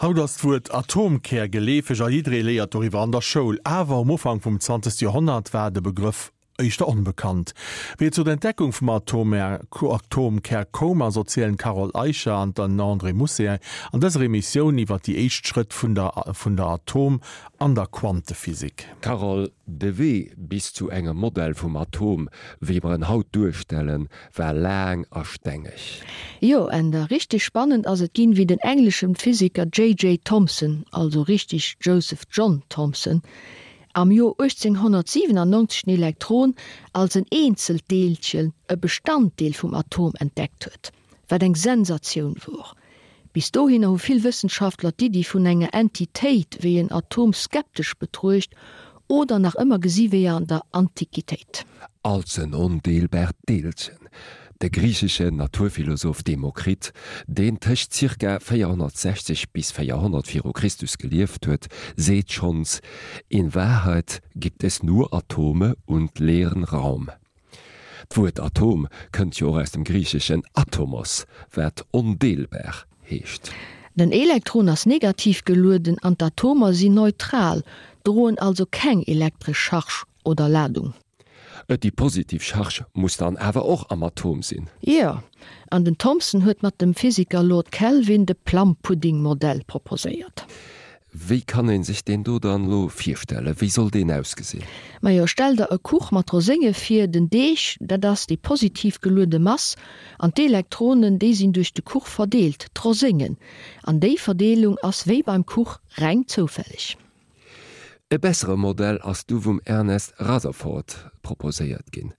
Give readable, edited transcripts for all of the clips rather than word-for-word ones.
Haut ass d'Wuert Atomkär geleefeg a jidderee léiert doriwwer an der Schoul. Awer um Ufank vum 20. Joerhonnert war de Begrëff éischter onbekannt. Wéi et zu der Entdeckung vum Atomkär koum ass, erzielen d'Carole Eicher an den André Mousset an dëser Emissioun iwwer déi éischt Schrëtt vun der vun der Atom an der Quantephysik. Carole, de Wee bis zu engem Modell vum Atom, wéi mer en haut duerstellen, war laang a stengeg. Jo, Änder, richteg spannend ass et ginn, wéi den engleschen Physiker JJ. Thomson, also richteg Joseph John Thomson, am Joer 1897 den Elektron als en eenzelt Deelchen, e Bestanddeel vum Atom, entdeckt huet, wat eng Sensatioun wor. Bis dohinner hu vill Wëssenschaftler d'Iddi vun enger Entitéit wéi en Atom skeptesch betruecht oder nach ëmmer gesi wéi an der Antiquitéit. Als en ondeelbart Deelchen. De griicheschen Naturphilosoph Demokrit, deen tëscht zirka 460 bis 400 viru Christus gelieft huet, seet schonns, In Wahrheit gibt es nur Atome und leeren Raum. D'Wuert Atom kënnt jo och aus dem griicheschen atomos, wat ondeelbar heescht. Den Elektron ass negativ gelueden an d'Atomer sinn neutral, droen also keng elektresch Charge oder Ladung. Déi positiv Charge muss dann awer och am Atom sinn. Jo, an den Thomson huet mat dem Physiker Lord Kelvin de Plum-Pudding-Modell proposéiert. Wéi kann een sech deen do dann elo virstellen? Wéi soll deen ausgesinn? Majo, stell der e Kuch mat Rosénge vir. Den Deeg, dat ass déi positiv geluede Mass, an d'Elektronen, déi sinn duerch de Kuch verdeelt, d'Roséngen. An déi Verdeelung ass wéi beim Kuch reng zoufälleg. E bessere Modell ass du vum Ernest Rutherford proposéiert ginn.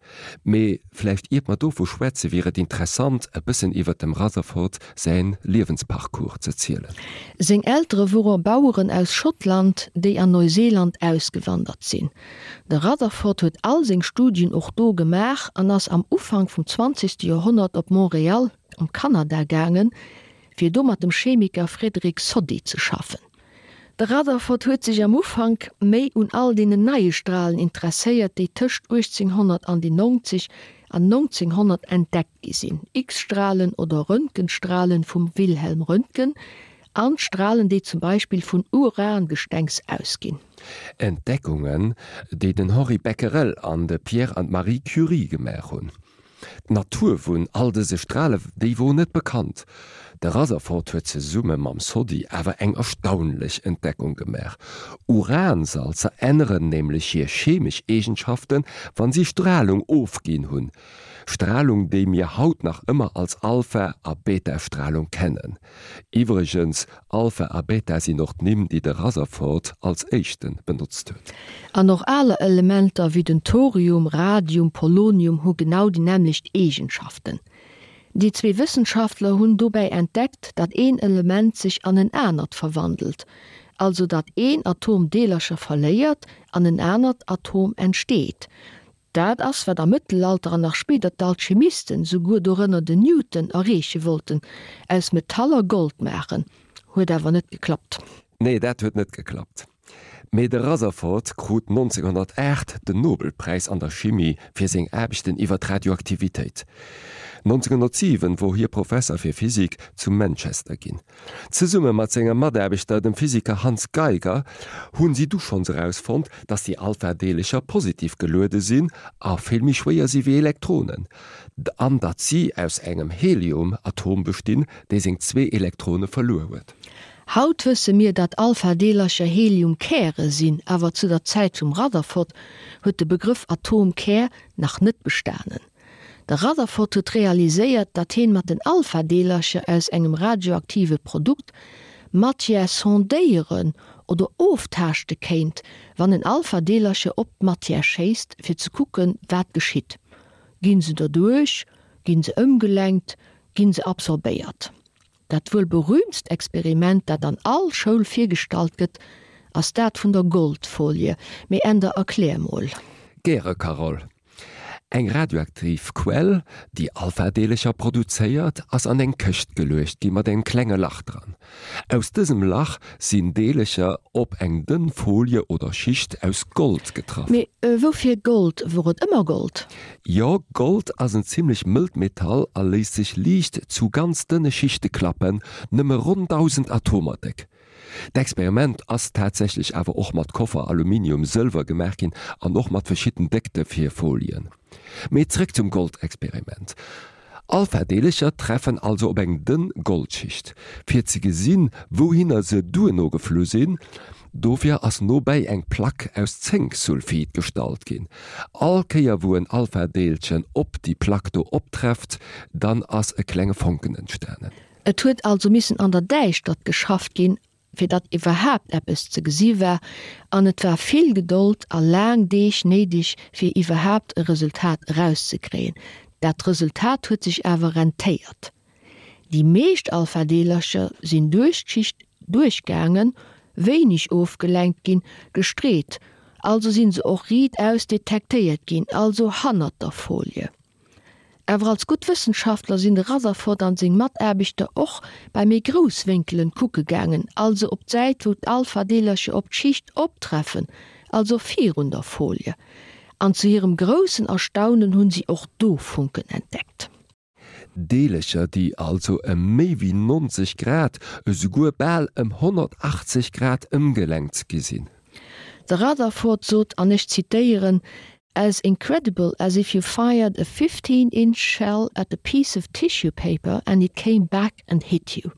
Mee vläicht iert mer dovu schwätze wier et interessant e bëssen iwwert dem Rutherford säin Liewensparcours ze zielen. Seng Eltere wore Baueren aus Schottland, déi an Neuseeland ausgewandert sinn. De Rutherford huet all seng Studien och do gemaach an ass am Ufank vum zwanzegste Joerhonnert op Montréal am Kanada gaangen, fir do mat dem Chemiker Frederick Soddy ze schaffen. De Rutherford huet sech am Ufank méi un all deenen neie Stralen interesséiert, déi tëscht 1890 an 1900 entdeckt gi sinn, X-Stralen oder Röntgenstralen vum Wilhelm Röntgen an d'Stralen, déi zum Beispill vun Urangestengs ausginn. Entdeckungen, déi den Henri Becquerel an de Pierre an d'Marie Curie gemaach hunn. D'Natur vun all dëse Strale, déi wor net bekannt. De Rutherford huet zesumme mam Soddy awer eng erstaunlech Entdeckung gemaach, Uransalzer änneren nämlech hir chemesch Eegenschaften, wann si Stralung ofginn hunn. Stralung, déi mir haut nach ëmmer als Alpha a Beta-Stralung kennen. Iwwregens, Alpha a Beta sinn och d'Nimm, déi de Rutherford als éischte benotzt huet. An och aler Elementer wéi den Thorium, Radium, Polonium hu genau déi nämmlecht Eegenschaften. Déi zwee Wëssenschaftler hunn dobäi entdeckt, datt een Element sech an en anert verwandelt, also datt een Atom Deelercher verléiert an en anert Atom entsteet. Dat ass, wat am Mëttelalter an nach spéider d'Alchemisten, souguer dorënner den Newton, erreeche wollten, aus Metaller Gold maachen. Huet awer net geklappt. Nee, dat huet net geklappt. Mee de Rutherford krut 1908 den Nobelpräis an der Chimie fir seng Aarbechten iwwer d'Radioaktivitéit. 1907 wor hie Professer fir Physik zu Manchester ginn. Zesumme mat sengem Mataarbechter, dem Physiker Hans Geiger, hunn si du schonns erausfonnt, datt déi Alpha-Deelecher positiv geluede sinn a vill méi schwéier si wéi Elektronen, an datt si aus engem Helium-Atom bestinn, dee seng zwee Elektrone verluer huet. Haut wësse mir, datt Alpha-Deelercher Helium-Käre sinn, awer zu der Zäit vum Rutherford huet de Begrëff Atomkär nach net bestanen. De Rutherford huet realiséiert, datt heen mat den Alpha-Deelercher aus engem radioaktive Produkt Matière sondéieren oder oftaaschte kéint, wann en Alpha-Deelercher op d'Matière schéisst, fir ze kucken, wat geschitt. Ginn se derduerch? Ginn se ëmgelenkt? Ginn se absorbéiert? Dat wuel berüümtst Experiment, dat an all Schoul virgestallt gëtt, ass dat vun der Goldfolie. Mee Änder, erklär mol. Gäre, Carole. Eng radioaktiv Quell, déi Alpha-Deelercher produzéiert, ass an eng Këscht geluecht gi mat engem klenge Lach dran. Aus dësem Lach sinn Deelercher op eng dënn Folie oder Schicht aus Gold getraff. Mee woufir Gold? Wor et ëmmer Gold? Jo, Gold ass en zimmlech mëllt Metall a léisst sech liicht zu ganz dënne Schichte klappen, nëmme ronn 1.000 Atomer déck. D'Experiment ass tatsächlech awer och mat Koffer, Aluminium, Sëlwer gemaach ginn an och mat verschidden Déckte fir Folien. Mee zréck zum Goldexperiment. Alpha-Deelercher treffen also op eng dënn Goldschicht. Fir ze gesinn, wouhinner se duerno geflu sinn, dofir ass nobäi eng Plack aus Zénksulfid gestallt ginn. All Kéier wou en Alpha-Deelchen op déi Plack do optrefft, dann ass e klenge Fonken entstanen. Et huet also missen an der Däischtert geschafft ginn, fir datt iwwerhaapt eppes ze gesi war, an et war vill Gedold a laang Deeg néideg, fir iwwerhaapt e Resultat erauszekréien. Dat Resultat huet sech awer rentéiert. Déi meescht Alphadeelercher sinn duerch d'Schicht duerchgaangen, wéineg ofgelenkt ginn, gestreet, also sinn se och riitaus detektéiert ginn, also hannert der Folie. Awer als gutt Wëssenschaftler sinn de Rutherford an seng Mataarbechter och bei méi grouss Wénkelen kucke gaangen, also op d'Säit wou d'Alpha-Deelercher op d'Schicht optreffen, also virun der Folie. An zu hirem groussen Erstaunen hunn si och do Funken entdeckt. Deelercher, déi also ëm méi wéi 90 Grad, esouguer bal ëm 180 Grad ëmgelenkt gi sinn. De Rutherford sot, an ech zitéieren, As incredible as if you fired a 15 inch shell at a piece of tissue paper and it came back and hit you.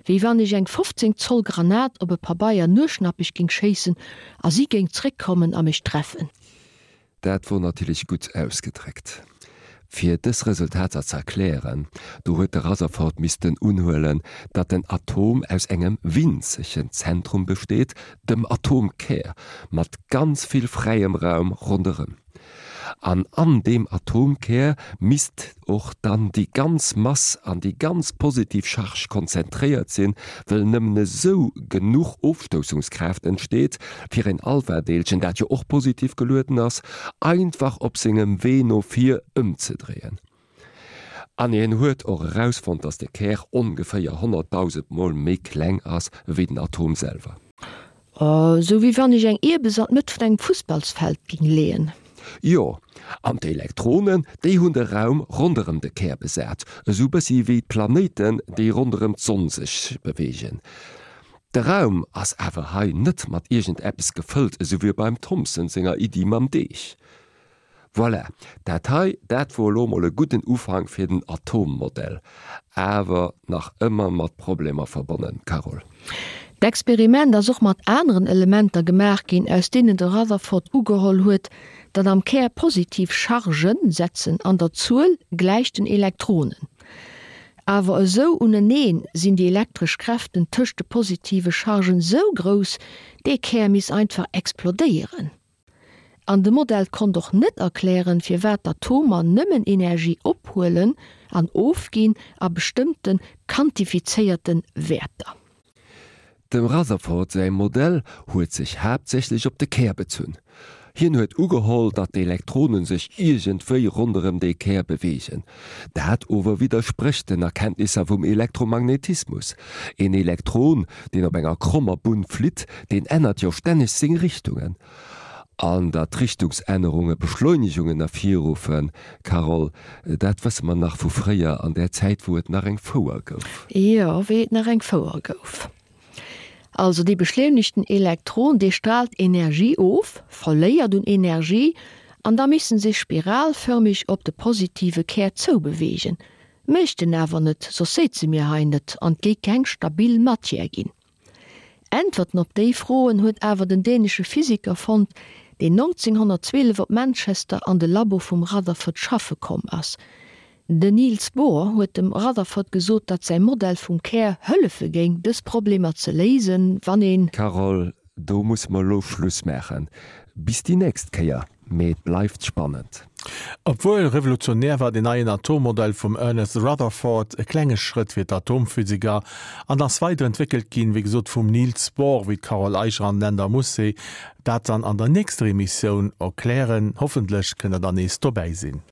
Wéi wann ech eng 15 Zoll Granat op e Pabeier nueschnappeg géing schéissen a si géing zréckkommen a mech treffen. Dat wor natierlech gutt ausgedréckt. Fir dës Resultater ze erklären, do huet de Rutherford missten unhuelen, datt den Atom aus engem winzegen Zentrum besteet, dem Atomkär, mat ganz vill fräiem Raum ronderëm. An an deem Atomkär misst och dann déi ganz Mass an déi ganz positiv Charge konzentréiert sinn, wëll nëmmen esou genuch Ofstoussungskraaft entsteet, fir een Alphadeelchen, dat jo och positiv gelueden ass, einfach op sengem Wee no vir ëmzedréien. An hien huet och erausfonnt, datt de Kär ongeféier 100.000 Mol méi kleng ass ewéi den Atom selwer. Sou wéi wann ech eng Ierbes an d'Mëtt vun engem Fussballsfeld ging leeën. Jo, an d'Elektronen, déi hunn de Raum ronderëm de Kär besat, esou bëssi wéi d'Planéiten, déi ronderëm d'Sonn sech beweegen. De Raum ass awer hei net mat iergend eppes gefëllt, esou wéi beim Thomson senger Iddi mam Deeg. Voilà, dat hei, dat wor elo mol e gudden Ufank fir den Atommodell, awer nach ëmmer mat Problemer verbonnen, Carole. D'Experiment ass och mat aneren Elementer gemaach ginn, aus deenen de Rutherford ugeholl huet, datt am Kär positiv Chargen setzen an der Zuel gläich den Elektronen. Awer esou uneneen sinn déi elektresch Kräften tëscht de positive Chargen sou grouss, dee Kär misst einfach explodéieren. An de Modell konnt och net erklären, firwat d'Atomer nëmmen Energie ophuelen an ofginn a bestëmmte quantifizéierte Wäerter. Dem Rutherford säi Modell huet sech haaptsächlech op de Kär bezunn. Hien huet ugeholl, datt d'Elektronen sech iergendwéi ronderëm dee Kär beweegen. Dat ower widdersprécht den Erkenntnisser vum Elektromagnetismus. Een Elektron, deen op enger krommer Bunn flitt, deen ännert jo stänneg seng Richtungen. An datt Richtungsännerunge Beschleunegungen ervirruffen, Carole, dat wësse mer nach vu fréier, an där Zäit, wou et nach eng Fouer gouf. Jo, wéi et nach eng Fouer gouf. Also dee beschleunegten Elektron, dee straalt Energie of, verléiert un Energie, an da misst en sech spiralförmeg op de positive Kär zoubeweegen. Mécht en awer net, soss séize mir hei net an 't géi keng stabil Matière ginn. Äntwerten op déi Froen huet awer den dänesche Physiker fonnt, deen 1912 op Manchester an de Labo vum Rutherford schaffe komm ass. Den Niels Bohr huet dem Rutherford gesot, datt säi Modell vum Kär hëllefe géing, dës Problemer ze léisen, wann een. Carole, do musse mer elo Schluss maachen. Bis déi nächst Kéier. Mee et bleift spannend. Obwuel revolutionär war den neien Atommodell vum Ernest Rutherford e klenge Schrëtt fir d'Atomphysiker an ass weiderentwéckelt ginn, wéi gesot vum Niels Bohr, wéi d'Carole Eicher an den Änder Mousset dat dann an der nächster Emissioun erklären. Hoffentlech kënnt der dann nees dobäi sinn.